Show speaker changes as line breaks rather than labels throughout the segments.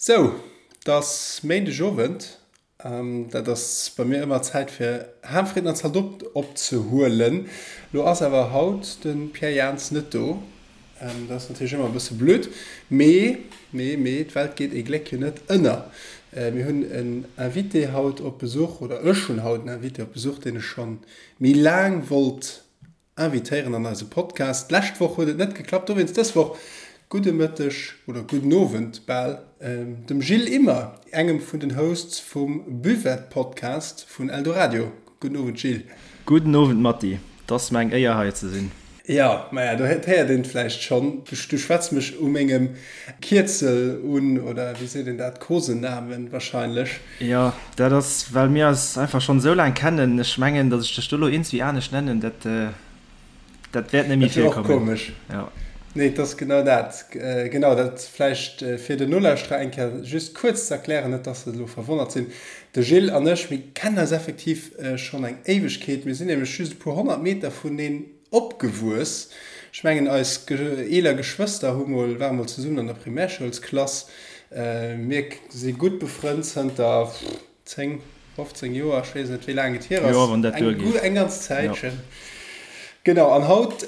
Sou, 't ass Méindeg Owend, dat ass bei mir ëmmer Zäit fir Ham, Fritten an Zaldot opzehuelen. Lo ass awer haut de Pierre Jans net do, dat ass natierlech ëmmer e bësse blöd, mee, mee, mee d'Welt geet ee Gléck jo net ënner. Mir hunn en Invité haut op Besuch, oder ech hunn haut en Invité op Besuch, deen ech schonn méi laang wollt invitéieren an eise Podcast. D'lescht Woch huet et net geklappt, dowéinst dës Woch gudde Mëtteg oder gudden Owend bal dem Gilles Immer, engem vun den Hosts vum Buvette Podcast vun Eldoradio. Gudden Owend Gilles.
Gudden Owend Matti, 't ass mer eng Éier hei ze sinn.
Jo, maja, do héiert een et vläicht schonn, du schwätz mech u mengem Kierzel un, oder wéi seet een dat, Kosenamen wahrscheinlech.
Jo, dat ass well mir eis einfach schonn esou laang kennen. Ech mengen, datt ech dech do elo iergendwéi anescht nennen, dat, dat wäert net méi
Dat wier och
virkommen.
komesch.
Jo.
Nee, et ass genau dat. Genau, dat vläicht fir den Nolauschterer eng Kéier just kuerz ze erklären, net datt se elo verwonnert sinn. De Gilles an ech, mir kennen eis effektiv schonn eng Éiwegkeet. Mir sinn nämlech just e puer 100 Meter vuneen Opgewuess. Ech mengen eis eeler Geschwëster hu mol, ware mol zesummen an der Primärschoulsklass. Mir si gutt befrënnt zënter 10, 15 Joer, ech weess net wéi laang et hier ass,
Jo, wann dat
eng
duergeet.
eng ganz Zäitchen. Genau, an haut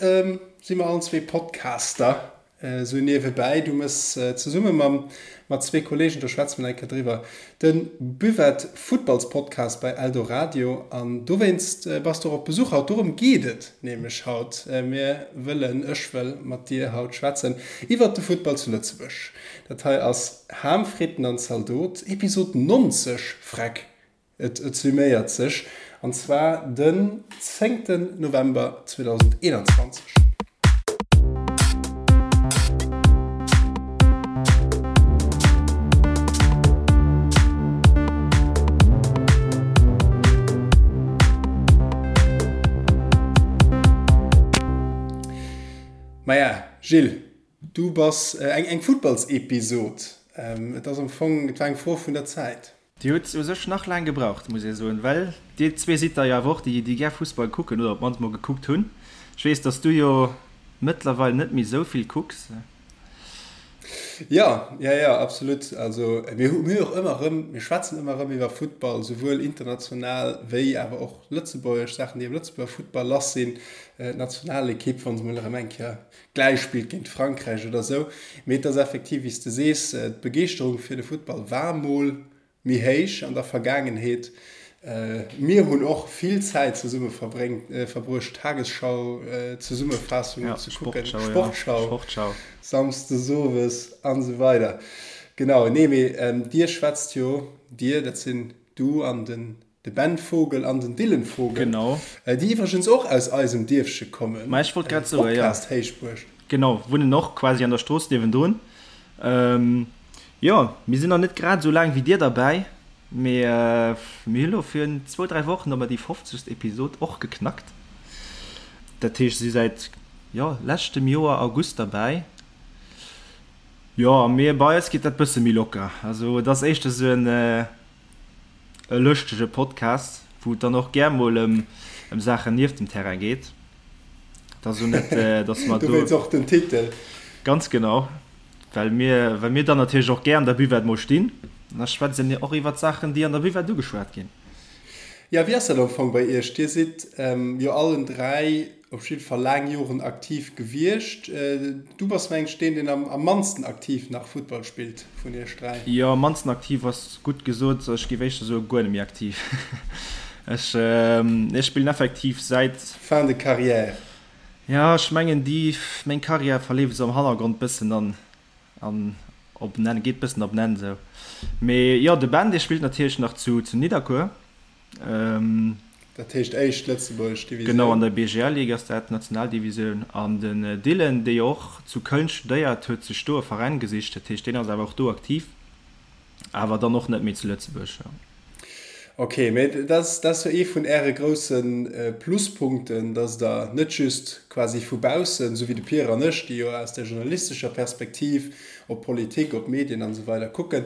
si mer allen zwee Podcaster. Esou niewebäi, du mëss zesumme mam mat zwee Kollegen, do schwätze mer nach eng Kéier driwwer, de Buvette Futtballspodcast bei Eldoradio an dowéinst bass du och op Besuch haut. Dorëm geet et nämlech haut. Mir wëllen, ech wëll mat dir haut schwätzen iwwert de Futtball zu Lëtzebuerg. Dat hei ass Ham, Fritten an Zaldot, Episod 90, freck! Et summéiert sech, an zwar den zéngten November 2021. Maja, Gilles, du bass eng Futtballsepisod. Et ass am Fong, et war eng Fro vun der Zäit.
Dir hutt u sech nach laang gebraucht, muss ee soen, well dir zwee sidd der jo awer och déi, déi gär Fussball kucken oder op d'mannst mol gekuckt hunn. Ech weess, dass du jo mëttlerweil net méi esou vill kucks.
Jo, jo, jo, absolut. Also mir hu mir och ëmmer erëm, mir schwätzen ëmmer erëm iwwer Futtball, souwuel international wéi awer och lëtzebuergesch Saachen, déi am Lëtzebuerger Futtball lass sinn, d'Nationalekipp, wa se mol erëm eng Kéier gläich spillt géint Frankräich oder esou. Mee et ass effektiv, wéi s de sees, d'Begeeschterung fir de Futtball war mol méi héich an der Vergaangenheet. Mir hunn och vill Zäit zesumme verbruecht, Tagesschau-Zesummefaassungen ze kucken, Sportschau samsdes owes an esou weider. Genau, nee, mee dir schwätzt jo, dir, dat sinn du an den De Ben Vogel an den Dylan Vogel,
Genau.
déi iwwregens och aus eisem Dierfche kommen,
Ma ech wollt grad soen, jo.
Podcast Héichbuerg.
Genau, wunnen och quasi an der Strooss niewendrun. Jo, mir sinn nach net grad esou laang wéi dir derbäi, mee mir hu lo virun zwou, dräi Wochen hu mer déi fofzegst Episod och geknackt. Dat heescht, si säit, jo, leschtem Joer August derbäi. Jo, a mir, bei eis geet dat bësse méi locker. Also et ass éischter esou en. E lëschtege Podcast, wou et dann och gär mol ëm Saachen nieft dem Terrain geet. Et ass elo net, dass mer do.
Dowéinst och den Titel.
Ganz genau, well mir, well mir dann natierlech och gär an der Buvette mol stinn. An da schwätze mir och iwwert Saachen, déi an der Buvette ugeschwat ginn.
Jo, wéi ass dat am Fong bei Iech? Dir sidd jo allen 3 Op jidde Fall laang Joren aktiv gewiescht. Du bass mengen ech deen, deen am mannsten aktiv nach Futtball spillt vun iech 3.
Jo, am mannsten aktiv ass gutt gesot. Ech géif éischter soe guer net méi aktiv. Ech spillen effektiv säit.
Fin de carrière.
Jo, ech mengen déi, meng Carrière verleeft esou am Hannergrond bëssen an an op en Enn, geet bëssen op en Enn esou. Mee jo, de Ben, dee spillt natierlech nach zu Nidderkuer.
Dat heescht éischt lëtzebuergesch Divisioun.
Genau, an der BGL-Ligue ass dat, Nationaldivisioun. An den Dylan, dee jo och zu Köln studéiert, huet sech do e Veräin gesicht. Dat heescht, deen ass awer och do aktiv, awer dann och net méi zu Lëtzebuerg.
Ok, mee dat ass jo ee vun Äre grousse Pluspunkten, datt Der net just quasi vu baussen, esou wéi de Pierre an ech, déi jo aus der journalistescher Perspektiv op Politik, op Medien an esou weider kucken,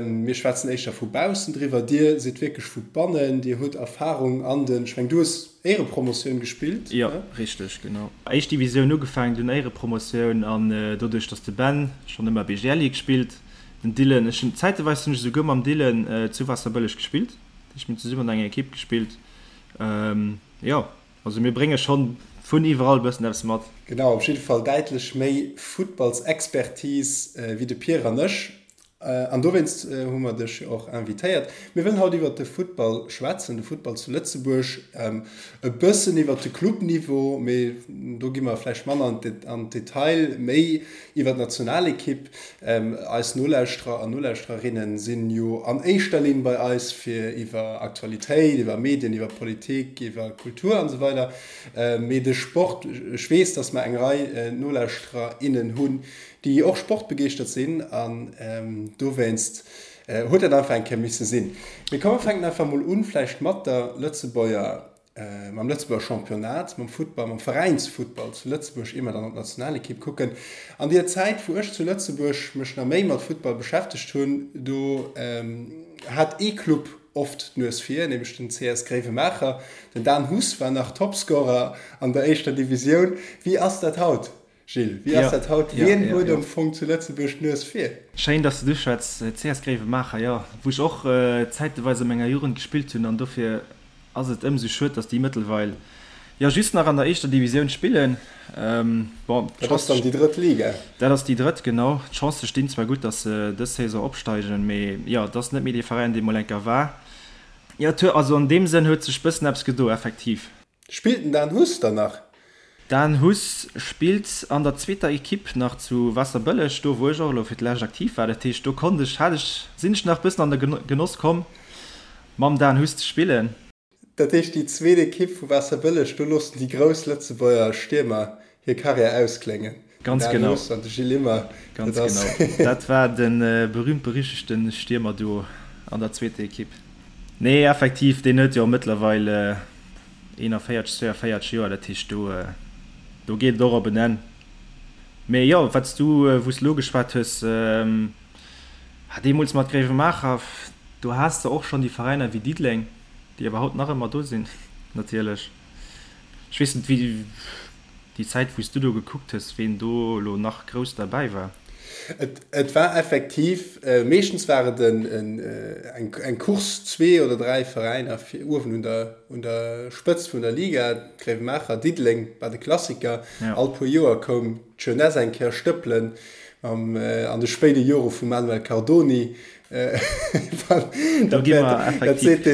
Mir schwätzen éischter vu baussen driwwer. Dir sidd wierklech vu bannen. Dir hutt Erfahrung an den, ech mengen, du hues Éierepromotioun gespillt,
Jo, richteg, genau. Éischt Divisioun ugefaangen, dunn Éierepromotioun an doduerch, datt de Ben schonn ëmmer BGL Ligue spillt. Den Dylan, ech hunn zäiteweis hunn ech esouguer mam Dylan zu Waasserbëlleg gespillt. Dat heescht mir hunn zesummen an enger Ekipp gespillt. Jo, also mir brénge schonn vun iwwerall e bëssen eppes mat.
Genau, op jidde Fall däitlech méi Futtballsexpertise wéi de Pierre an ech. An dowéinst hu mer dech jo och invitéiert. Mir wëllen haut iwwert de Futtball schwätzen, de Futtball zu Lëtzebuerg, e bëssen iwwert de Clubniveau, mee do gi mer vläicht manner an d'Detail, méi iwwer d'Nationalekipp. Eis Nolauschterer an Nolauschtererinne sinn jo an éischter Linn bei eis fir iwwer Aktualitéit, iwwer Medien, iwwer Politik, iwwer Kultur an esou weider. Mee de Sport, ech weess, datt mer eng Rei Nolauschterer, innen hunn, déi och sportbegeeschtert sinn an dowéinst huet dat einfach eng Kéier misse sinn. Mee komm mer fänken einfach mol un vläicht mat der Lëtzebuerger, mam Lëtzebuerger Championnat, mam Futtball, mam Veräinsfuttball zu Lëtzebuerg, ier mer dann op d'Nationalekipp kucken. An deer Zäit wou ech zu Lëtzebuerg mech nach méi mat Futtball beschäftegt hunn, do hat ee Club oft d'Nues vir, nämlech den CS Gréiwemaacher. Den Dan Huss war nach Topscorer an der éischter Divisioun. Wéi ass dat haut? Gilles, wéi ass dat haut? Wien huet am Fong zu Lëtzebuerg d'Nues vir?
Schéin, dass de duerchschwätz. CS Gréiwemaacher, jo, wou ech och zäiteweis a menger Jugend gespillt hunn an dofir ass et ëmsou schued, dass déi mëttelweil jo just nach an der éischter Divisioun spillen.
Bon, dat ass dann déi drëtt Liga.
Dat ass déi drëtt, genau. D'Chancë stinn zwar gutt, dass se dës Saison opsteigen, mee jo, et ass net méi dee Veräin, dee mol enker war. Jo, et huet, also an deem Sënn huet sech bëssen eppes gedo, effektiv.
Spillt den Dan Huss dann nach?
Dan Huss spillt an der zweeter Equipe nach zu Waasserbëlleg, do wou ech och elo fir d'lescht aktiv war. Dat heescht do konnt ech, hat ech, sinn ech nach bëssen an de Genoss komm mam Dan Huss ze spillen.
Dat heescht déi zweet Equipe vu Waasserbëlleg, do loossen déi grouss Lëtzebuerger Stiermer hir Karriär auskléngen.
Ganz Den Dan genau. Huss an
de Gilles Immer,
Ganz dat ass. genau. Dat war de berühmt-berüchtegte Stiermerduo an der zweeter Equipe. Nee, effektiv, deen huet jo mëttlerweil 41, 42 Joer, dat heescht do, do geet et och op en Enn. Mee jo, wat s du, wou s de elo geschwat hues, deemools mat Gréiwemaacher, do has de och schonn déi Veräiner wéi Diddeleng, déi awer haut nach ëmmer do sinn natierlech. Ech weess net, wéi déi Zäit, wou s du do gekuckt hues, ween do elo nach grouss derbäi war.
Et war effektiv, meeschtens war et eng Course, zwee oder dräi Veräiner fir uewen un der, un der Spëtzt vun der Liga, Gréiwemaacher, Diddeleng war de Klassiker. All puer Joer koum d'Jeunesse eng Kéier stëppelen, an de spéide Jore vum Manuel Cardoni.
Do gi mer effektiv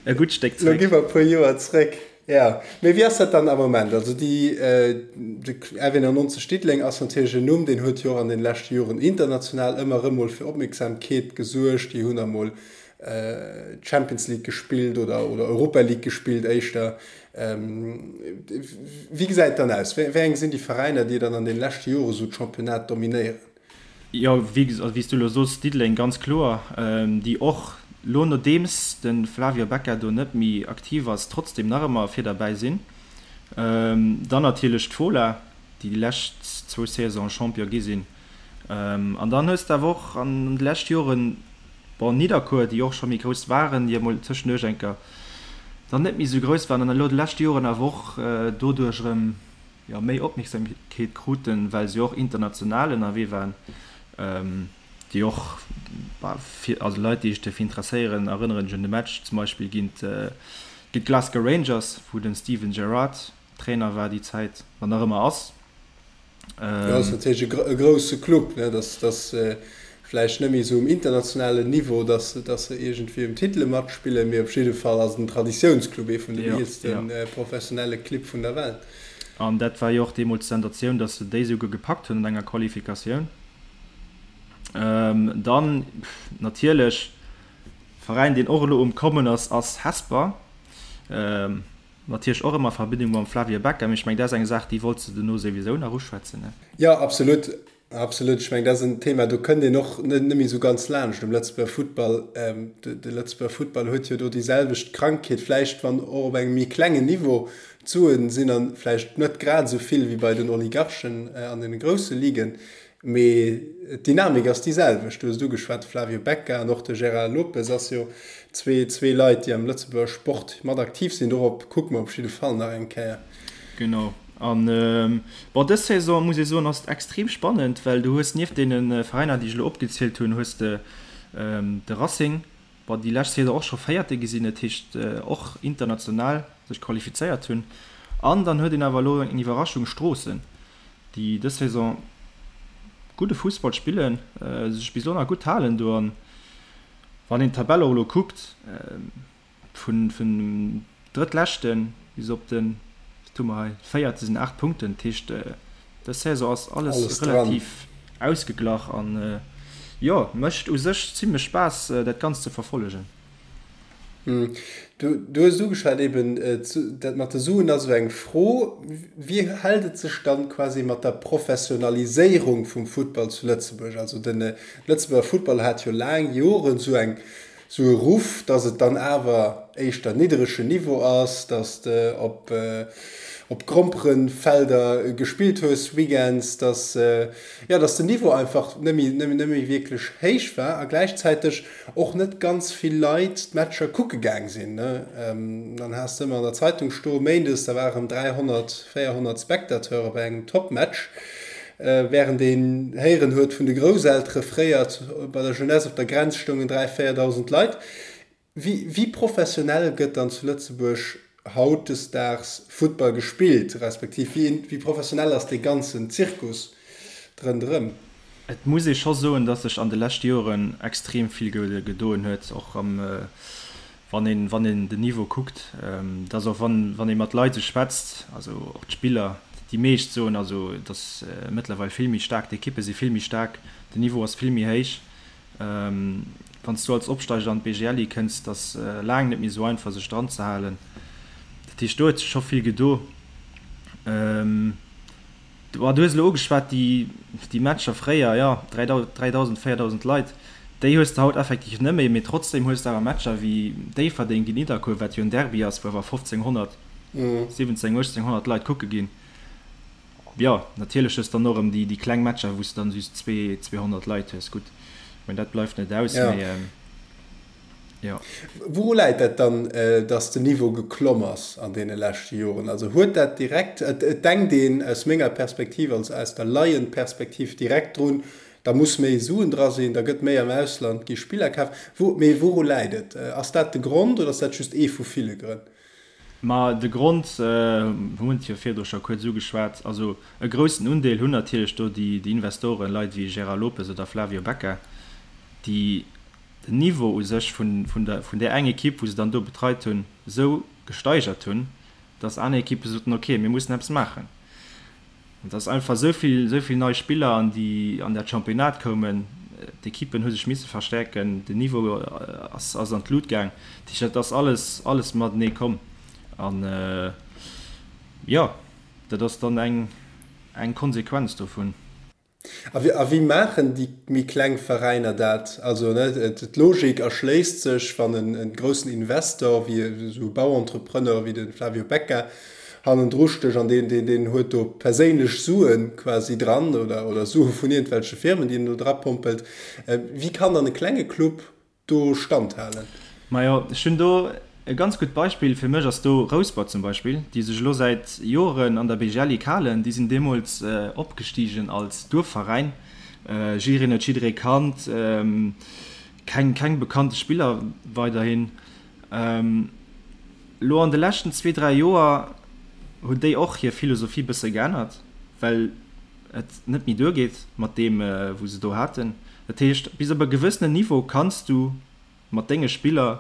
e gutt Stéck
zréck. Lo gi mer e puer Joer zréck. Jo, mee wéi ass dat dann am Moment? Also déi, de RW 99 Diddeleng ass natierlech en Numm, deen huet jo och an den leschte Joren international ëmmer erëm mol fir Opmierksamkeet gesuergt. Déi hunn da mol Champions League gespillt oder, oder Europa League gespillt éischter. Wéi gesäit et dann aus? Wéi eng sinn déi Veräiner, déi dann an den leschte Jore sou d'Championnat dominéieren?
Jo, wéi s du elo soos, Diddeleng ganz kloer, déi och lo nodeems de Flavio Becca do net méi aktiv ass, trotzdem nach ëmmer vir derbäi sinn. Dann natierlech d'Fola, déi déi lescht zwou Saisonen Champion gi sinn. An dann hues de awer och an de leschte Joren, bon, Nidderkuer, déi och scho méi grouss waren, déi emol tëschenduerch eng Kéier dann net méi esou grouss waren an elo de leschte Joren awer och doduerch erëm, jo, méi Opmierksamkeet kruten, well se jo och international ënnerwee waren, déi och, bah, fir, also Leit, déi sech derfir interesséieren, erënneren sech un de Match zum Beispill géint, géint d'Glasgow Rangers, wou de Steven Gerrard Trainer war déi Zäit, an nach ëmmer ass.
Jo, ass natierlech e grousse Club, ne, dass, dass vläicht net méi esou um internationalen Niveau, dass, dass se iergendwéi ëm Titele matspillen, mee op jidde Fall ass et en Traditiounsclub, ee vun den eelste professionelle Clibb vun der Welt.
An dat war jo och deemools d'Sensatioun, dass se déi esouguer gepackt hunn an enger Qualifikatioun. Dann natierlech Veräin, deen och elo um Kommen ass, ass Hesper. Natierlech och ëmmer a Verbindung mam Flavio Becca, mee ech mengen, dat ass eng Saach, déi wollts de dono souwisou nach uschwätzen, ne?
Jo, absolut, absolut. Ech mengen, dat ass en Thema, do kënnt een och net méi esou ganz laanscht um Lëtzebuerger Futtball. De Lëtzebuerger Futtball huet jo do déi selwecht Krankheet, vläicht wann och op engem méi klengen Niveau. D'Suen sinn dann vläicht net grad esou vill wéi bei den Oligarchen an deene grousse Ligen, Mee d'Dynamik ass déi selwecht. Du hues et ugeschwat, de Flavio Becca an och de Gérard Lopez ass jo zwee Leit, déi am Lëtzebuerger Sport mat aktiv sinn. Dorop kucke mer op jidde Fall nach eng Kéier.
Genau. An bon, dës Saison, muss ee soen, ass et extrem spannend, well du hues nieft deene Veräiner, déi ech elo opgezielt hunn, hues de de Racing, bon, déi lescht Saison och scho Véierte gi sinn, dat heescht och international sech qualifizéiert hunn. An dann huet een awer elo eng Iwwerraschung, Stroossen, déi dës Saison gudde Fussball spillen, sech bis elo nach gutt halen do. An wann een d'Tabell och elo kuckt, Vun dem Drëttleschte bis op de, wat hu mer hei, Véierte sinn 8 Punkten. Dat heescht, dës Saison ass alles relativ ausgeglach an, jo, mécht u sech zimmlech Spaass, dat Ganzt ze verfollegen.
Du hues et ugeschwat eben, dat mat de Suen ass esou eng Fro. Wéi hält et sech dann quasi mat der Professionaliséierung vum Futtball zu Lëtzebuerg? Also de Lëtzebuerger Futtball hat jo laang Joren esou eng sou e Ruff, dass et dann awer éischter nidderegen Niveau ass, dass de op op Gromperenfelder gespillt hues weekends, dass jo, dass den Niveau einfach net méi net méi wierklech héich war a gläichzäiteg och net ganz vill Leit d'Matcher kucke gaang sinn. Dann has de ëmmer an der Zeitung stoe méindes, da ware rëm 300, 400 Spectateure bei engem Topmatch. Wärend een héieren huet vun de Grousseltere fréier, bei der Jeunesse op der Grenz stoungen 3, 4.000 Leit. Wéi professionell gëtt dann zu Lëtzebuerg hautdesdaags Futtball gespillt, respektiv wéi professionell ass dee ganzen Zirkus rënderëm?
Et muss ee scho soen, datt sech an de leschte Joren extrem vill gedoen huet, och am Wann een, wann een den Niveau kuckt, dass och wann, wann ee mat Leit esou schwätzt, also och d'Spiller, déi meescht soen also, et ass mëttlerweil vill méi staark, d'Ekippe si vill méi staark, den Niveau ass vill méi héich. Wann s du als Opsteiger an d'BGLI kënns, et ass laang net méi esou einfach sech dran ze halen. Dat heescht, do huet sech scho vill gedo. Du hues elo ugeschwat, déi Matcher fréier, jo, 3.000, 4.000 Leit, déi hues de haut effektiv net méi, mee trotzdeem hues de awer Matcher wéi Déifferdeng géint Nidderkuer, wat jo en Derby ass, wou awer 1.500, 17, 1.800 Leit kucke ginn. Jo, natierlech hues de dann och erëm déi kleng Matcher, wou s de dann just 200 Leit hues. Gutt, ech mengen, dat bleift net aus, mee.
Jo. Wouru läit dat dann, dass den Niveau geklomm ass an deene leschte Joren? Also huet dat direkt, et denkt een aus menger Perspektiv, also aus der Laienperspektiv direkt drun, da muss méi Suen dra sinn, da gëtt méi am Ausland, gi Spiller kaf. Wou, mee wouru läit et? Ass dat de Grond oder ass dat just ee vu ville Grënn?
Ma de Grond, hunn et jo virdru scho kuerz ugeschwat, also e groussen Undeel hunn natierlech do déi Investoren, Leit wéi Gérard Lopez oder Flavio Becca, déi den Niveau u sech vun vun där eng Ekipp, wou se dann do betreit hunn, esou gesteigert hunn, dass aner Ekippe soten, ok, mir mussen eppes maachen. An dass einfach esou vill, esou vill nei Spiller an déi, an dat Championnat koumen, d'Ekippen hu sech misse verstärken, den Niveau ass, ass an d'Lut gaang. Dat heescht, dat ass alles, alles matenee komm. An, jo, dat ass dann eng, eng Konsequenz dovun.
A wéi maachen déi méi kleng Veräiner dat? Also d'Logik erschléisst sech, wann e groussen Investor wéi esou e Bauentrepreneur wéi de Flavio Becca hannendru stécht an deen huet do perséinlech Sue quasi dran oder Sue vun iergendwelche Firmen, déi en do drapompelt. Wéi kann dann e klenge Club do standhalen?
Majo, ech hunn do e ganz gutt Beispill. Fir mech ass do Rouspert zum Beispill, déi sech elo säit Joren an der BGL-Ligue halen. Déi sinn deemools opgestigen als Duerfveräin. Jiddereen huet jidderee kannt, keng, keng bekannte Spiller weiderhin. Elo an de leschten zwee, dräi Joer hunn déi och hir Philosophie bësse geännert, well et net méi duergeet mat deem, wou se do haten. Dat heescht, bis op e gewëssenen Niveau kanns du mat denge Spiller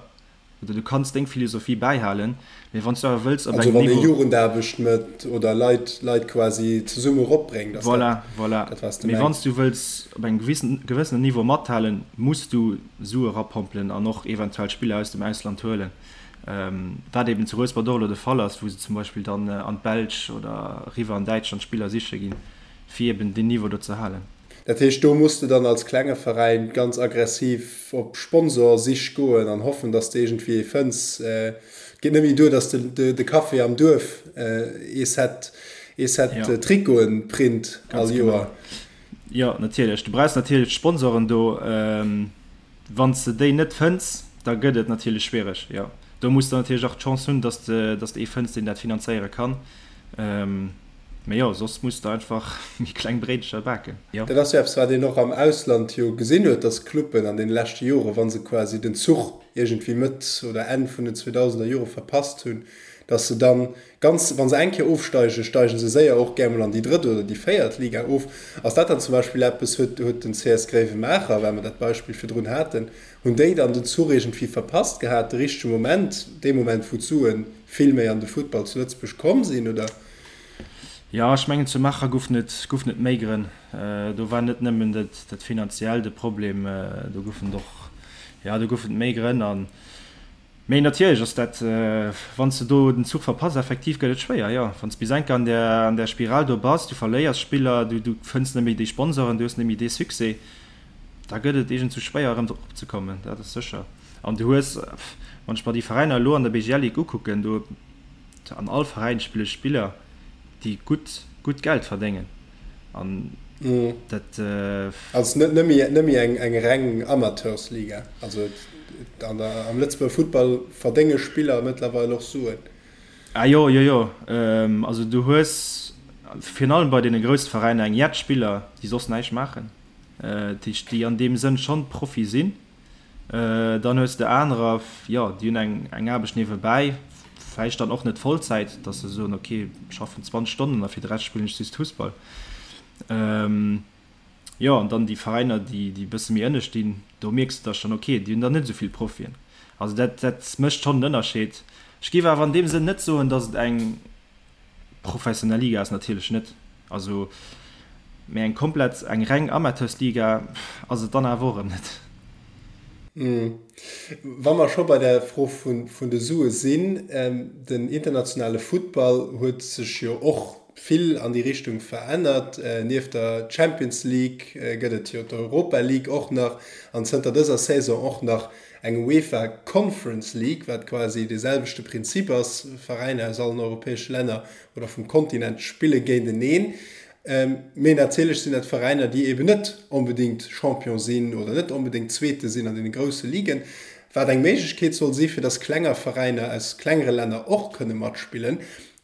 oder du kanns deng Philosophie bäihalen, mee wann s du awer wëlls op
engem Niveau. Also wann ee Jugendaarbecht mécht oder Leit, Leit quasi zesumme eropbréngt, ass dat
Voilà, voilà. dat, wat s de Mee wann s mengs? du wëlls op engem gewissen, gewëssenen Niveau mathalen, muss du Sue erapompelen an och eventuell Spiller aus dem Ausland huelen, wat eben zu Rouspert och elo de Fall ass, wou se zum Beispill dann an d'Belsch oder eriwwer an Däitschland Spiller siche ginn, fir eben deen Niveau do ze halen.
Dat heescht, do muss de dann als klenge Veräin ganz aggressiv op Sponsorsich goen an hoffen, dass de iergendwéi ee fënns. Et geet net méi duer, dass de de Café am Duerf ee Set, ee Set Trikoten print all Joer.
Jo, natierlech. Du brauchs natierlech d'Sponsoren do. Wann s de déi net fënns, da gëtt et natierlech schwiereg. Jo, do muss de natierlech och d'Chance hunn, dass de, dass de ee fënns, deen dat finanzéiere kann. Mee jo, soss muss de einfach méi kleng Bréidecher baken.
Jo. Dat ass jo eppes, wat een och am Ausland jo gesinn huet, dass Cluben an deene leschte Jore, wa se quasi den Zuch iergendwéi Mëtt oder Enn vun den 2000er Jore verpasst hunn, dass se dann ganz, wa se eng Kéier ofsteigen, steigen se séier och gär mol an déi drëtt oder déi véiert Liga of. Ass dat dann zum Beispill eppes, huet, huet den CS Gréiwemaacher, well mer dat Beispill virdrun haten, hunn déi dann den Zuch iergendwéi verpasst gehat, de richtege Moment, dee Moment, wou d'Sue vill méi an de Futtball zu Lëtzebuerg komm sinn, oder?
Jo, ech mengen zu Maacher goufen et goufen et méi Grënn. Do war net nëmmen dat dat finanziell de Problem, do goufen et och, jo do goufen et méi Grënn an, mee natierlech ass dat, wann s de do den Zuch verpass, effektiv gëtt et schwéier, jo. Wann s bis enker an där an där Spiral do bass, du verléiers Spiller, du du fënns net méi déi Sponsoren, du hues net méi dee Succès, da gëtt et iergendsou schwéier erëm drop opzekommen, dat ass sécher. An du hues, wann ech mer déi Veräiner elo an der BGL Ligue ukucken, do An all Veräin spille Spiller, déi gutt, gutt Geld verdéngen. An dat.
Also net nëmme eng reng Amateursliga. Also an der, am Lëtzebuerger Futtball verdénge Spiller mëttlerweil och Suen.
Ah jo, jo, jo. Also du hues virun allem bei deene grousse Veräiner eng jett Spiller, déi soss näischt maachen, déi an deem Sënn schonn Profi sinn. Dann hues de anerer, jo, déi hunn eng eng Aarbecht niewebäi, vläicht dann och net Vollzäit, datt se soen, ok, ech schaffen 20 Stonnen a fir de Rescht spillen ech just Fussball. Jo, an dann déi Veräiner, déi déi e bësse méi ënne stinn, do mierks de da schonn, ok, déi hunn dann net esou vill Profien. Also dat dat mécht schonn en Ënnerscheed. Ech géif awer an deem Sënn net soen, datt et eng Professionell Liga ass natierlech net, also, mee eng komplett, eng reng Amateursliga ass et dann awer och erëm net.
Wa mer scho bei der Fro vun de Sue sinn, den internationale Futtball huet sech jo och vill an déi Richtung verännert. Nieft der Champions League gëtt et jo d'Europa League och nach an zënter dëser Saison och nach Eng UEFA Conference League, wat quasi dee selwechte Prinzip ass, Veräiner aus allen europäesche Länner oder vum Kontinent spille géinteneen. Mee natierlech sinn dat Veräiner, déi eben net onbedéngt Champion sinn oder net onbedéngt Zweete sinn an deene grousse Ligen, wat eng Méiglechkeet soll si fir datt klenger Veräiner aus klengere Länner och kënne matspillen.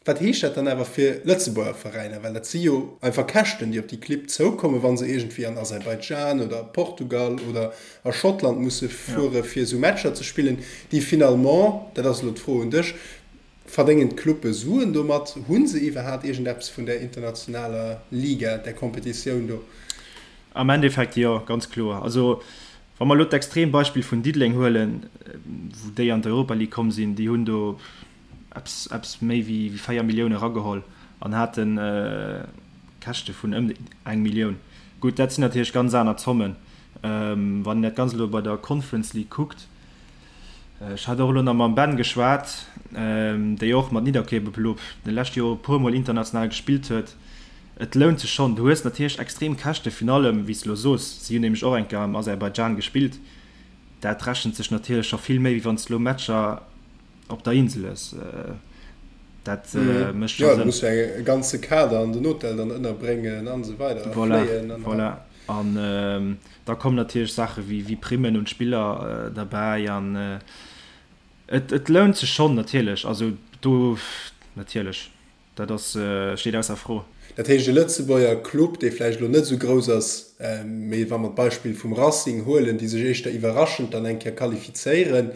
Wat heescht dat dann awer fir Lëtzebuerger Veräiner? Well dat si jo einfach Käschten, déi op déi Clibb zoukommen, wa se iergendwéi an Aserbaidschan oder a Portugal oder a Schottland musse fuere fir esou Matcher ze spillen, déi finalement, dat ass elo d'Fro un dech, verdéngen d'Clubbe Suen domat? Hu se iwwerhaapt iergendeppes vun där internationaler Liga, där Kompetitioun do?
Am Endeffekt jo, ganz kloer. Also wa mer elo d'Extrembeispill vun Diddeleng huelen, wou déi an d'Europa League komm sinn, déi hunn do, eppes eppes méi wéi 4 Millioune erageholl an hate Käschte vun ëm eng Millioun. Gutt, dat sinn natierlech ganz aner Zommen. Wann een dat Ganzt elo bei der Conference League kuckt, ech hat och elo nach mam Ben geschwat, déi och mat Nidderkuer elo de leschte Jore e puermol international gespillt huet, et lount sech schonn. Du hues natierlech extrem Käschte virun allem, wéi s de elo soos, si hunn nämlech och eng Kéier am Aserbaidschan gespillt, dat rechent sech natierlech scho vill méi, wéi wann s de elo Matcher op der Insel ass.
Dat mécht scho Sënn. Jo, du muss jo e ganze Kader an den Hotel dann ënnerbréngen an esou weider a
fléien an. Voilà, an da kommen natierlech Saache wéi Primmen un d'Spiller derbäi an et lount sech schonn natierlech. Also do natierlech, dat ass, steet ausser Fro.
Dat heescht, e Lëtzebuerger Club, dee vläicht elo net esou grouss ass, mee wa mer d'Beispill vum Racing huelen, déi sech éischter iwwerraschend dann eng Kéier qualifizéieren,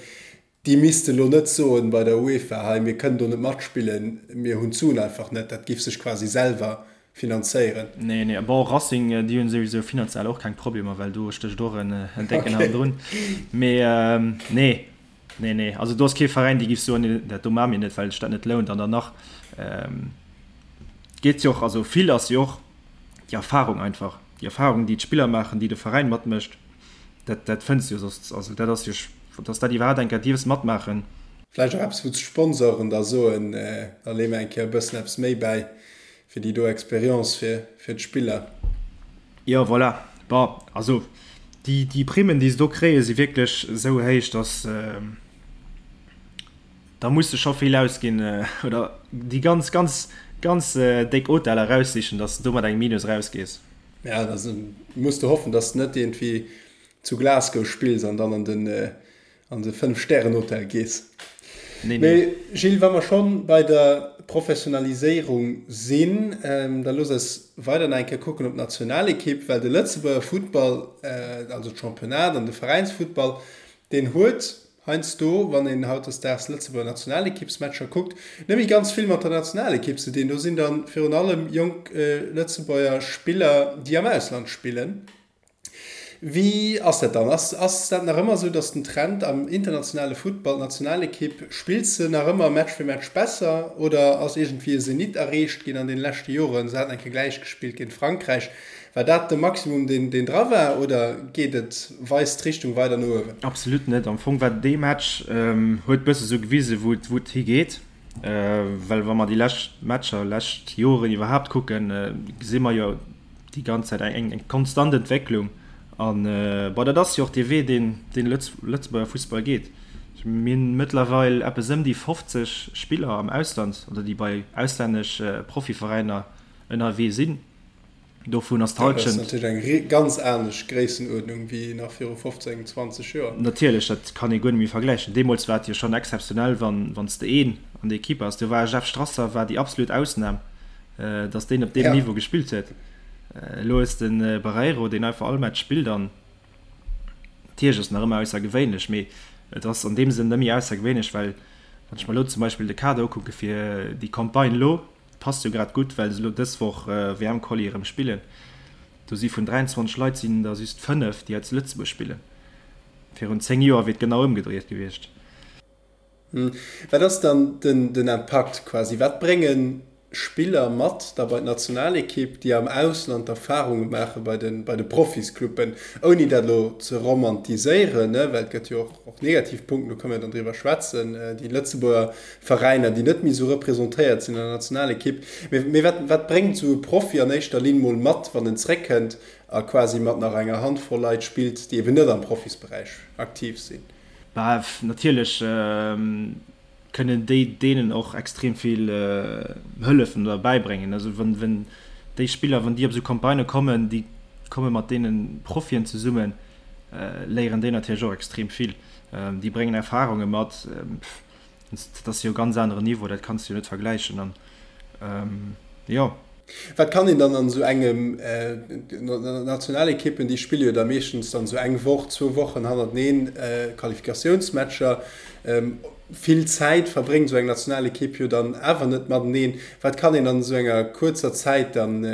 Déi misste lo net soen bei der UEFA, hei mir kënnen do net matspillen, mir hunn d'Suen einfach net. Dat giff sech quasi selwer finanzéieren.
Nee, nee, bon Racing, déi hunn souwisou finanziell och keng Problemer, well do stécht och en décken hannendrun. Mee nee, nee, nee, also do ass kee Veräin, dee giff soen, dat do maache mir net, well sech dat net lount. An dann nach geet jo och, also vill ass jo och déi Erfarung einfach, déi Erfarung, déi d'Spiller maachen, déi de Veräin matmécht. Dat, dat fënns du jo soss, also dat ass jo, dass dat iwwerhaapt eng Kéier dierfs matmaachen.
Vläicht och eppes, wou d'Sponsoren da soen, da leeë mer eng Kéier e bëssen eppes méi bäi fir déi do Expérience fir, fir d'Spiller.
Jo, voilà. Bon, also déi, déi Primmen, déi se do kréien, si wierklech esou héich, dass da muss de scho vill ausginn oder déi ganz, ganz, ganz déck Hoteller eraussichen, dass de do mat engem Minus erausgees.
Ja, da muss de hoffen, dass de net iergendwéi zu Glasgow spills an dann an den an de Fënnf-Stären-Hotel gees.
Nee, nee.
Mee Gilles, wa mer schonn bei der Professionaliséierung sinn, da looss eis weider nach eng Kéier kucken op d'Nationalekipp, well de Lëtzebuerger Futtball, also d'Championnat an de Veräinsfuttball, deen huet heiansdo, wann een hautdesdaags Lëtzebuerger Nationalekippsmatcher kuckt, net méi ganz vill mat der Nationalekipp ze dinn. Do sinn da virun allem jonk Lëtzebuerger Spiller, déi am Ausland spillen. Wéi ass dat dann? Ass ass dat nach ëmmer esou, datt den Trend am internationale Futtball, d'Nationalekipp, spillt se nach ëmmer Match fir Match besser oder ass iergendwéi e Zenit erreecht ginn an deene leschte Joren? Se haten eng Kéier gläich gespillt géint Frankräich. War dat de Maximum, deen deen dra war oder geet et, weist d'Richtung weider no uewen?
Absolut net. Am Fong war dee Match, huet bësse sou gewisen, wou et wou et higeet. Well wa mer déi lescht Matcher, lescht Joren iwwerhaapt kucken, gesi mer jo, déi ganz Zäit eng eng konstant Entwécklung an bon dat ass jo och dee Wee deen deen Lëtzebuerger Fussball geet. Mir hunn mëttlerweil eppes ëm déi 50 Spiller am Ausland oder déi bei auslännesch Profiveräiner ënnerwee sinn. Dovun ass
d'Hallschent. Dat ass natierlech eng ganz anescht Gréissenuerdnung wéi nach viru 15, 20 Joer.
Natierlech, dat kann ee guer net méi vergläichen. Deemools war et jo schonn exzeptionell wann wann s de een an der Equipe has. Do war Jeff Strasser war déi absolut Ausnam. dass deen op deem Niveau gespillt huet. Elo hues de den Barreiro, deen einfach all Match spillt an natierlech ass en nach ëmmer aussergewéinlech, mee et ass an deem Sënn net méi aussergewéinlech, well wann ech mer elo zum Beispill de Kader ukucke fir déi Campagne elo, passt jo grad gutt, well se elo dës Woch WM-Quali erëm spillen, do si vun 23 Leit sinn der just 5, déi hei zu Lëtzebuerg spillen. Virun 10 Joer wier et genau ëmgedréit gewiescht.
Wat ass dann den Impakt quasi? Wat brénge Spiller mat da bei d'Nationalekipp, déi am Ausland Erfarunge maache bei de Profiscluben? Ouni dat elo ze romantiséieren, well et gëtt jo och negativ Punkten, do kënne mir dann driwwer schwätzen, déi Lëtzebuerger Veräiner, déi net méi esou representéiert sinn an der Nationalekipp. Mee wat bréngt esou e Profi an éischter Linn mol mat, wann en zréckkënnt a quasi mat nach enger Handvoll Leit spillt, déi eben net am Profisberäich aktiv sinn?
Bah, natierlech kënnen déi deenen och extrem vill hëllefen oder bäibréngen. Also wann, wenn déi Spiller, wann déi op esou Campagnë kommen, déi komme mat deene Profien zesummen, léieren déi natierlech och extrem vill. Déi bréngen Erfarunge mat. Dat ass jo e ganz aneren Niveau, dat kanns de jo net vergläichen. An jo.
Wat kann een dann an esou engem, Nationalekippen, déi spille jo da meeschtens dann esou eng Woch, zwou Wochen hannerteneen Qualifikatiounsmatcher, vill Zäit verbréngt esou eng Nationalekipp jo dann awer net mateneen. Wat kann een an esou enger kuerzer Zäit dann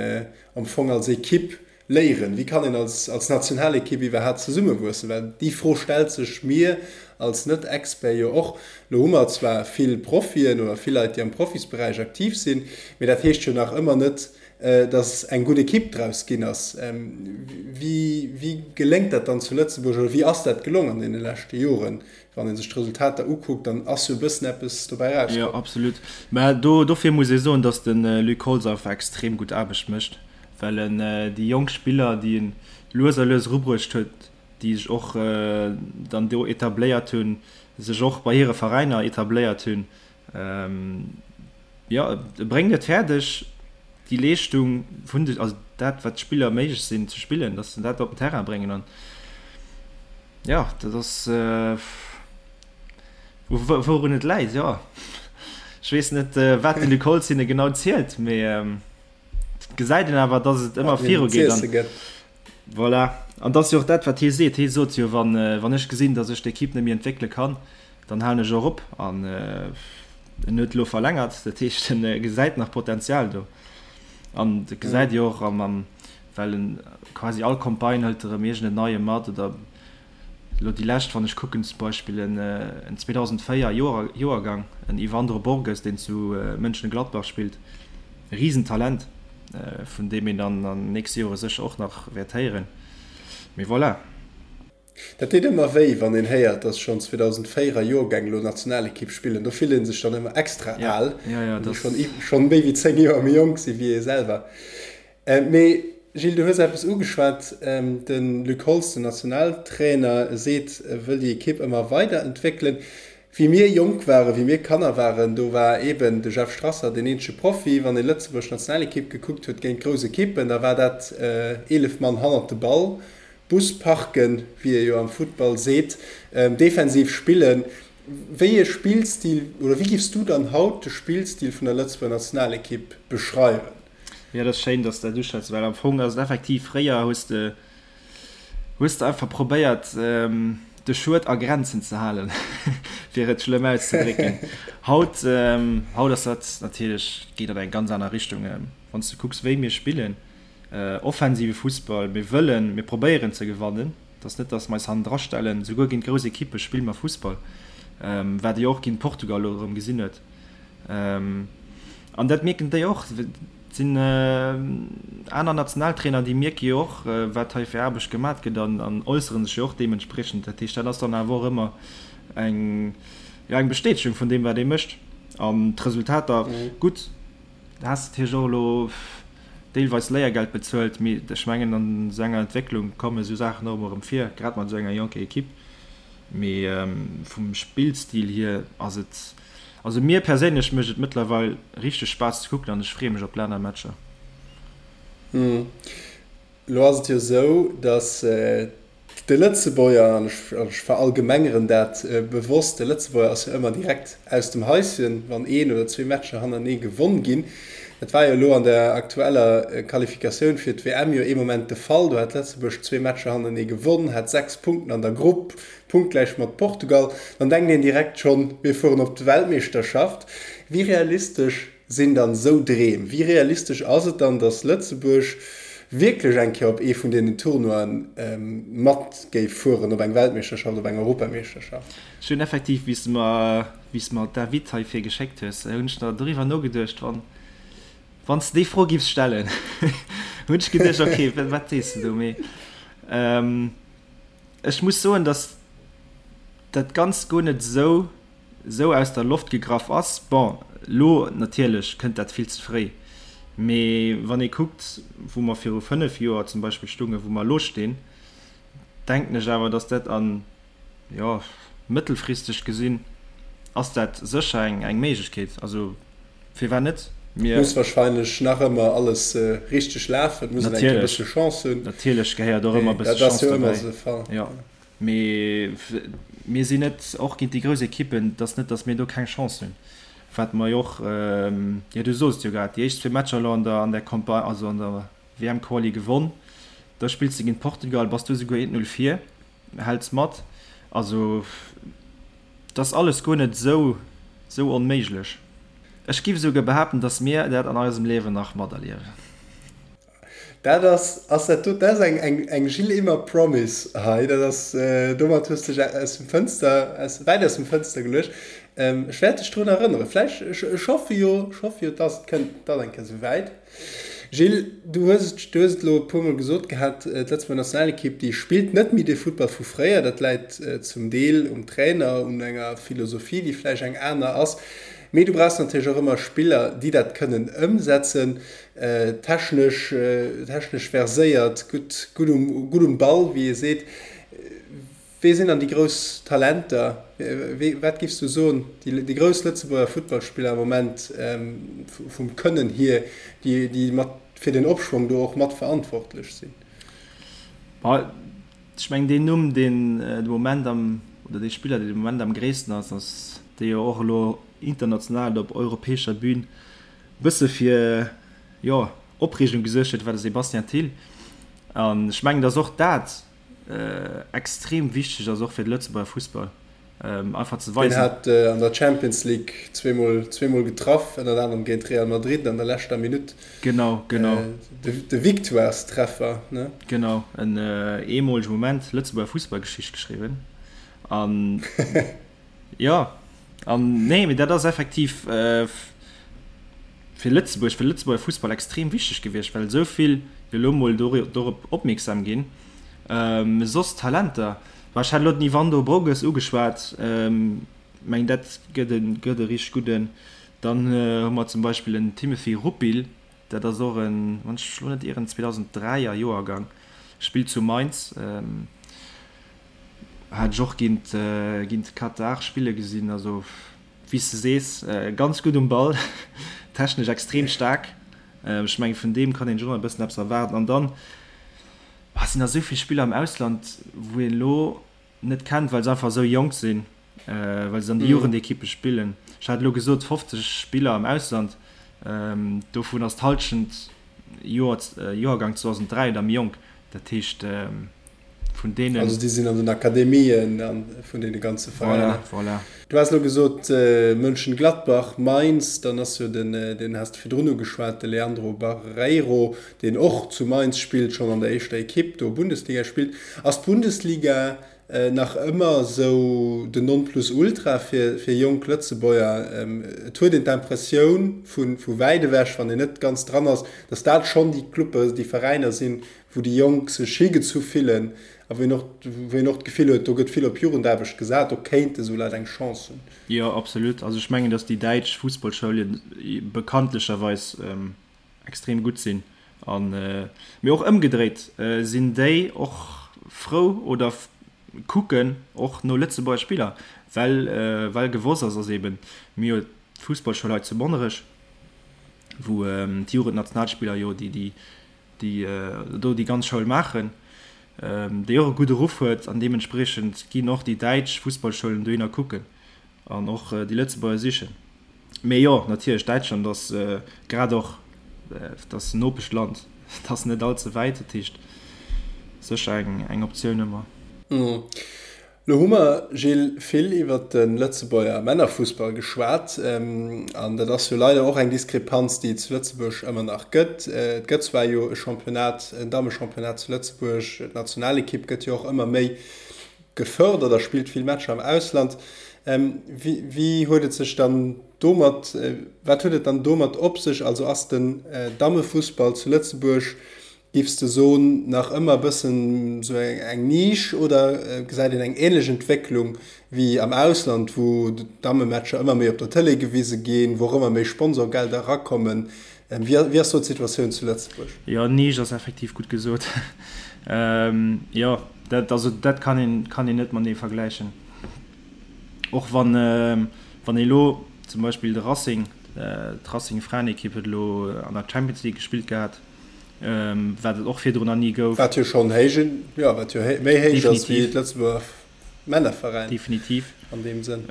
am Fong als Ekipp Léieren? Wéi kann een als als Nationalekipp iwwerhaapt zesummewuessen? Well déi Fro stellt sech mir als Net-Expert jo och. Lo hu mer zwar vill Profien oder vill Leit, déi am Profisberäich aktiv sinn, mee dat heescht jo nach ëmmer net, datt eng gutt Ekipp draus ginn ass. Wéi wéi geléngt dat dann zu Lëtzebuerg oder wéi ass dat gelong an deene leschte Joren? Wann ee sech d'Resultater ukuckt, dann ass jo e bëssen eppes dobäi
erauskomm. Jo, absolut. Mä do dofir muss ee soen, datt de Luc Holtz einfach extrem gutt Aarbecht mécht. Well en déi jonk Spiller, déi en lues a lues erubruecht huet, déi sech och dann do etabléiert hunn, sech och bei hire Veräiner etabléiert hunn, jo, e bréngt et fäerdeg, déi Leeschtung vun de, also dat, wat d'Spiller méiglech sinn ze spillen, datt se dat op den Terrain bréngen. An jo, dat ass, wourun et läit, jo, ech weess net, wat de Luc Holtz hinne genau zielt, mee. Et gesäit een awer, dass et ëmmer viru geet. An, voilà. An dat ass jo och dat, wat hie seet. Hie sot jo, wann, wann ech gesinn, dass ech d'Ekipp net méi entwéckele kann, dann halen ech och op. An en huet elo verlängert, dat heescht, en gesäit nach Potenzial do. An dat gesäit ee jo och am, am, well en quasi all Campagne hëlt erëm iergend en Neie mat oder Elo déi lescht, wann ech kucken, zum Beispill en 2004 Joergang, en Yvandro Borges, deen zu Mönchengladbach spillt, e Risentalent, vun deem een dann an den nächste Jore sécher och nach wäert héieren. Mee voilà.
Dat deet ëmmer wéi, wann een héiert, dass schonn 2004er Joergäng elo Nationalekipp spillen. Do fillt ee sech dann ëmmer extra al, wann déi schonn méi wéi 10 Joer méi jonk si wéi ee selwer. Mee Gilles, du hues eppes ugeschwat, De Luc Holtz, den Nationaltrainer, seet, e wëll déi Ekipp ëmmer weider entwéckelen. Wéi mir jonk waren, wéi mir Kanner waren, do war eeben de Jeff Strasser deen eenzege Profi. Wann ee Lëtzebuerg Nationalekipp gekuckt huet géint grouss Ekippen, da war dat 11 Mann hannert de Ball, Bus parken, wéi ee jo am Futtball seet, defensiv spillen. Wéi ee Spillstil oder wéi giffs du dann haut de Spillstil vun der Lëtzebuerger Nationalekipp beschreiwen?
Jo, dat ass schéin, dass de dat uschwätz, well am Fong ass et effektiv, fréier hues de hues de einfach probéiert, de Schued a Grenzen ze halen, fir et schlëmm auszedrécken. Haut, haut ass dat natierlech, geet dat eng ganz aner Richtung. Wann s de kucks, wéi mir spillen, offensive Fussball, mir wëllen, mir probéieren ze gewannen. Et ass net, datt mer eis hannendra stellen. Souguer géint grouss Ekippe spille mer Fussball, wat ee jo och géint Portugal elo erëm gesinn huet. An dat mierken déi och. Et sinn aner Nationaltrainer, déi mierke jo och, wat hei fir Aarbecht gemat gëtt an äussere sech jo och deementspriechend. Dat heescht, dat ass dann awer och ëmmer eng, jo, eng Bestätegung vun deem, wat ee mécht. An d'Resultater, gutt, Da has de natierlech och elo deelweis Léiergeld bezuelt, mee ech mengen an esou enger Entwécklung kommen esou Saachen och ëmmer erëm vir, grad mat esou enger jonker Ekipp. Mee vum Spillstil hier ass et, also mir perséinlech mécht et mëttlerweil richteg Spaass ze kucken an ech freeë mech op d'Lännermatcher.
Elo ass et jo esou, datt de Lëtzebuerger, an ech verallgemengeren dat bewosst, de Lëtzebuerger ass jo ëmmer direkt aus dem Haischen, wann een oder zwee Matcher hannerenee gewonn ginn. Dat war jo elo an der aktueller Qualifikatioun fir d'WM jo ee Moment de Fall. Do hat Lëtzebuerg zwee Matcher hannerenee gewonn, hat 6 Punkten an der Grupp, punktgläich mat Portugal. Dann denkt een direkt schonn, mir fueren op d'Weltmeeschterschaft. Wéi realistesch Sinn dann esou Dreem? Wéi realistesch ass et dann, datt Lëtzebuerg wierklech eng Kéier op ee vun deenen Tournoien mat géif fueren, op eng Weltmeeschterschaft, op eng Europameeschterschaft?
Ech hunn effektiv, wéi s de mer, wéi s de mer d'Invite heifir geschéckt hues, hunn ech der doriwwer nogeduecht, wann, wann s de déi Fro giffs stellen, hunn ech geduecht, okay, wat sees de do? Mee ech muss soen, datt dat Ganzt guer net esou esou aus der Loft gegraff ass. Bon, elo natierlech kënnt dat vill ze fréi, mee wann ee kuckt, wou mer viru 5 Joer zum Beispill stungen, wou mer elo stinn, denken ech awer, dass dat an, jo, mëttelfristeg gesinn ass dat sécher eng, eng Méiglechkeet. Also firwat net?
Mir. Muss wahrscheinlech nach ëmmer alles richteg lafen, et muss een eng Kéier e bësse Chance hunn.
Natierlech gehéiert och ëmmer e bësse Chance dobäi. Jo. Mee mir sinn net, och géint déi grouss Ekippen, et ass net, datt mir do keng Chance hunn. Wat mer jo och, jo du sos et jo grad, déi éischt zwee Matcher elo an der an der Campagne, also an der WM-Quali gewonn, da spills de géint Portugal, bass du esouguer 1-0 vir, häls mat. Also et ass alles guer net esou esou onméiglech. Ech giff esouguer behaapten, datt mir dat an eisem Liewen nach materliewen.
Dat ass, ass dat do, dat ass eng, eng, eng Gilles Immer Promise hei. Dat ass, domat hues de dech aus dem Fënster, aus, wäit aus dem Fënster geluecht. Ech wäert dech drun erënneren. Vläicht, ech, ech hoffe jo, ech hoffe jo, dass et kënnt, et ass eng Kéier esou wäit. Gilles, du hues et, du hues et elo e puermol gesot gehat, d'Lëtzebuerger Nationalekipp, déi spillt net méi dee Futtball vu fréier. Dat läit zum Deel um Trainer, un enger Philosophie, déi vläicht eng aner ass. Mee du brauchs natierlech och ëmmer Spiller, déi dat kënnen ëmsetzen. Technesch, technesch verséiert, gutt, gutt um, gutt um Ball, wéi ee seet. Wee sinn dann déi grouss Talenter? Wee, wat giffs du soen, déi, déi grouss Lëtzebuerger Futtballspiller am Moment vum Kënnen hier, déi, déi mat fir den Opschwong do och mat verantwortlech sinn?
Bah, ech mengen deen Numm, deen de Moment am, oder dee Spiller, deen de Moment am gréissten ass, ass dee jo och elo international op europäescher Bühn bësse fir, jo, Opreegung gesuergt huet, war de Sébastien Thill. An ech mengen, datt och dat extrem wichteg ass, och fir de Lëtzebuerger Fussball, einfach ze
weisen. Deen hat an der Champions League zweemol, zweemol getraff, ënnert anerem géint Real Madrid an der leschter Minutt.
Genau, genau.
De Victoirestreffer, ne?
Genau, en eemolege Moment, Lëtzebuerger Fussballgeschicht geschriwwen. An Jo, an nee, mee dat ass effektiv fir Lëtzebuerg, fir de Lëtzebuerger Fussball extrem wichteg gewiescht, well esou vill jo elo mol dorop opmierksam ginn. Soss Talenter, bah ech hat elo den Yvando Broges ugeschwat, mengen dat gëtt e gëtt e richteg gudden. Dann hu mer zum Beispill en Timothy Rupil, dat ass och en, wann ech mech elo net ieren, 2003 er Joergang, spillt zu Mainz. Hat ech och géint géint Katar spille gesinn, also wéi s de sees, ganz gutt um Ball, technesch extrem staark. Ech mengen vun deem kann een sech och nach e bëssen eppes erwaarden. An dann sinn der esou vill Spiller am Ausland, wou een elo net kennt, well se einfach esou jonk sinn. well se an de Jugendekippe spillen. Ech hat elo gesot 50 Spiller am Ausland, dovun ass d'Hallschent Joer, Joergang 2003 oder méi jonk. Dat heescht vun deenen.
Also déi sinn an den Akademien an vun deene ganze Veräiner.
Voilà, voilà.
Du has elo gesot Mönchengladbach, Mainz, dann ass jo den, deen has de virdrun ugeschwat, de Leandro Barreiro, deen och zu Mainz spillt, schonn an der éischter Ekipp do Bundesliga spillt. Ass d'Bundesliga nach ëmmer esou den Nonplusultra fir jonk Lëtzebuerger? Et huet een d'Impressioun vu wäit ewech, wann een net ganz dran ass, datt dat schonn déi Clubbe, déi Veräiner sinn, wou déi Jonk sech higezu fillen a wou een och, wou een och d'Gefill huet, do gëtt vill op Jugendaarbecht gesat, do kéinte sou Leit eng Chance hunn.
Jo, absolut. Also ech mengen, datt déi däitsch Fussballschoul bekanntlecherweis extrem gutt sinn an, mee och ëmgedréit sinn déi och frou oder kucken och no Lëtzebuerger Spiller, well well gewosst ass, ass eben, mir hu jo d'Fussballschoul hei zu Monnerech, wou d'Jugendnationalspiller jo déi déi déi do déi ganz Schoul maachen, déi och e gudde Ruff huet an deementspriechend ginn och déi däitsch Fussballschoulen dohinner kucken an och déi Lëtzebuerger sichen. Mee jo, natierlech, Däitschland ass grad och, et ass en Nopeschland, et ass net all ze wäit, dat heescht sécher eng Optioun ëmmer.
Lo hu mer, Gilles, vill iwwert de Lëtzebuerger Männerfussball geschwat. An dat ass jo leider och eng Diskrepanz, déi et zu Lëtzebuerg ëmmer nach gëtt. Et gëtt zwar jo e Championnat, en Dammechampionnat zu Lëtzebuerg, d'Nationalekipp gëtt jo och ëmmer méi gefërdert a spillt vill Matcher am Ausland. Wéi huet et sech dann domat, wat huet et dann domat op sech? Also ass den Dammefussball zu Lëtzebuerg, giffs de soen, nach ëmmer e bëssen esou eng Nisch oder gesäit een eng änlech Entwécklung wéi am Ausland, wou d'Dammematcher ëmmer méi op der Tëlee gewise ginn, wou och ëmmer méi Sponsorgelder erakommen? Wéi ass do d'Situatioun zu Lëtzebuerg?
Jo, Nisch ass effektiv gutt gesot. Jo, dat, also dat kann een, kann een net matenee vergläichen. Och wann, wann ee lo zum Beispill de Racing, d'Racing Fraenekipp huet elo an der Champions League gespillt gehat, wat et och virdrun nach ni gouf.
Wat jo schonn héich, jo, wat jo méi héich ass wéi d'Lëtzebuerger Männerveräin.
Definitiv.
An deem Sënn.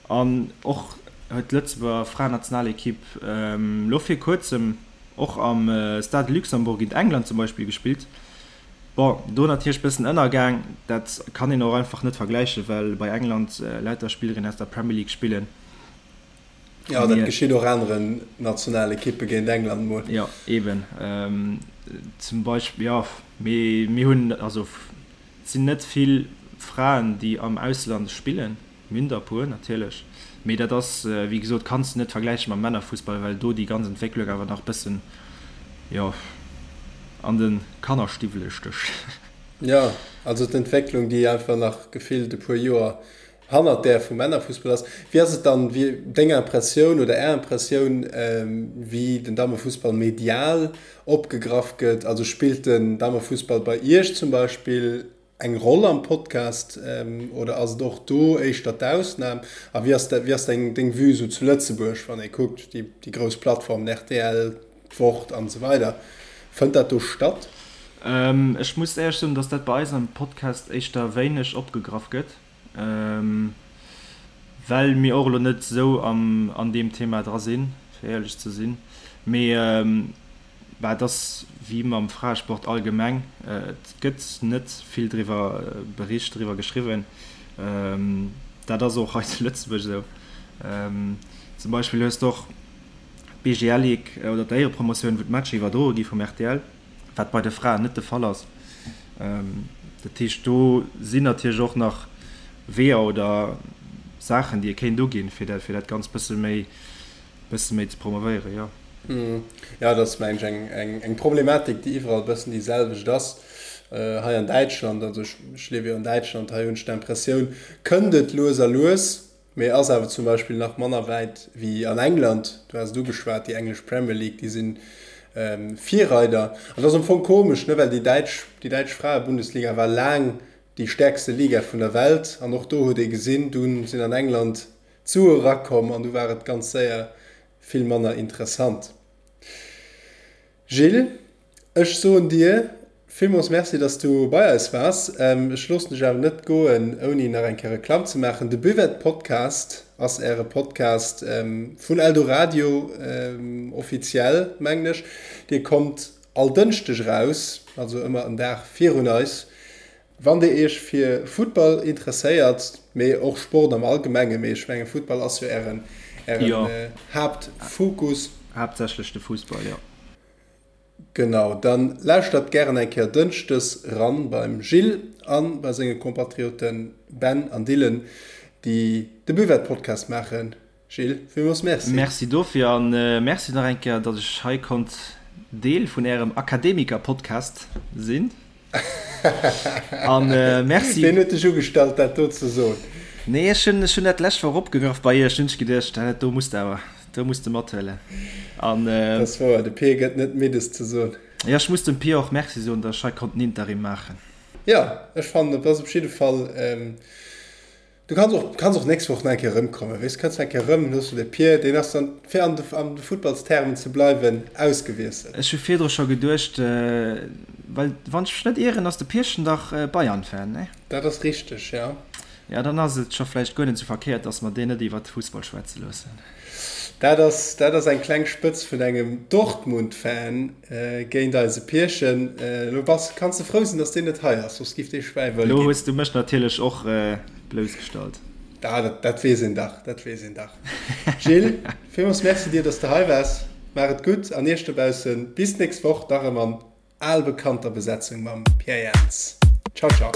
An och huet d'Lëtzebuerger Fraennationalekipp elo vir kuerzem och am Stade de Luxembourg géint England zum Beispill gespillt. Bon, do natierlech bëssen ënnergaang, dat kann een och einfach net vergläichen, well bei England lauter Spillerinnen aus der Premier League spillen.
Jo, dat geschitt och aneren Nationalekippe géint England mol.
Jo, eben. Zum Beispill, jo, mee mir hunn, also et sinn net vill Fraen, déi am Ausland spillen. Mir hunn der e puer natierlech, mee dat ass, wéi gesot, kanns de net vergläiche mam Männerfussball, well do déi ganz Entwécklung awer nach e bëssen, jo, an de Kannerstiwwele stécht.
Jo, also d'Entwécklung, déi einfach nach gefillt e puer Joer hannert där vum Männerfussball ass. Wéi ass et dann, wéi deng Impressioun oder Är Impressioun, wéi den Dammefussball medial opgegraff gëtt? Also spillt den Dammefussball bei Iech zum Beispill eng Roll am Podcast oder ass et och do éischter d'Ausnam? A wéi ass wéi ass deng deng Vue sou zu Lëtzebuerg, wann ee kuckt déi déi grouss Plattformen rtl, d'Wort an esou weider, fënnt dat do statt?
Ech muss éierlech soen, dass dat bei eis am Podcast éischter wéineg opgegraff gëtt, well mir och elo net esou am an deem Thema dra sinn, fir éierlech ze sinn. Mee Bah, et ass wéi mam Fraesport allgemeng, et gëtt net vill driwwer bericht, driwwer geschriwwen. Dat ass och hei zu Lëtzebuerg esou. Zum Beispill hues de och d'BGL Ligue oder d'Éierepromotioun, wou d'Matcher iwwerdroe gi vum rtl, wat bei de Fraen net de Fall ass. Dat heescht, do sinn natierlech och nach Weeër oder Saachen, déi ee kéint uginn, fir dat, fir dat Ganzt bësse méi bësse méi ze promovéieren, jo.
Jo, dat ass, mengen ech, eng, eng Problematik, déi iwwerall e bëssen déi selwecht ass. Hei an Däitschland, also ech, ech liewe jo an Däitschland, hei hunn ech d'Impressioun, kënnt et lues a lues, mee ass awer zum Beispill nach manner wäit wéi an England. Du has et ugeschwat, déi englesch Premier League, déi si Virreider. An dat ass am Fong komesch, ne, well déi däitsch, déi däitsch Fraebundesliga war laang déi stäerkste Liga vun der Welt an och do huet ee gesinn, dunn sinn an England D'Sue erakomm an du war et ganz séier vill manner interessant. Gilles, ech soen dir. Villmools Merci, dass du bei eis waars. Ech loossen dech awer net goen, ouni nach eng Kéier Reklamm ze maachen. De Buvette Podcast ass äre Podcast vun Eldoradio, offiziell, mengen ech. Dir kommt all Dënschdeg eraus, also ëmmer en Dag virun eis. Wann dir iech fir Futtball interesséiert, mee och Sport am Allgemengen, mee ech mengen Futtball ass jo ären Haaptfokus.
Haaptsächlech de Fussball, jo.
Genau, dann lauschtert gären eng Kéier Dënschdes ran beim Gilles an bei senge Kompatrioten Ben an Dylan, déi de Buvette Podcast maachen. Gilles, villmools Merci.
Merci dofir an Merci nach eng Kéier, datt ech hei konnt Deel vun ärem Akademiker-Podcast sinn. An Merci.
Ween huet dech ugestallt, dat do ze soen?
Nee, ech hunn, ech hunn dat d'lescht Woch opgegraff bei iech, hunn ech geduecht, dat do muss de awer, do muss de mathuelen.
An. Dat ass wouer, de Pir gëtt net midd, es ze soen.
Jo, ech muss dem Pir och Merci soen, datt ech hei konnt den Interim maachen.
Jo, ech fannen, et ass op jidde Fall. Du kanns och, kanns och nächst Woch nach eng Kéier erëmkommen, weess, kënns nach eng Kéier erëm, dann hues du de Pier, deen ass dann, fir an de, an de Futtballstermen ze bleiwen, ausgewiesselt.
Ech hu virdru scho geduecht, well wann ech mech net ieren, ass de Pierchen dach Bayern-Fan, ne?
Dat ass richteg, jo.
Jo, dann ass et scho vläicht guer net esou verkéiert, dass mer deen net iwwert Fussball schwätze loossen.
Dat ass, dat ass eng kleng Spëtz vun engem Dortmund-Fan géint eise Pierchen. Elo bass, kanns de frou sinn, dass deen net hei ass, soss giff dee Schwäi wëll
Elo ginn. hues du mech natierlech och bloussgestallt.
Ah, dat, dat weess een dach, dat weess een dach. Gilles, villmools Merci dir, dass de hei waars. Maach et gutt an iech dobaussen bis d'nächst Woch, da rëm an al bekannter Besetzung mam Pierre Jans. Ciao, ciao.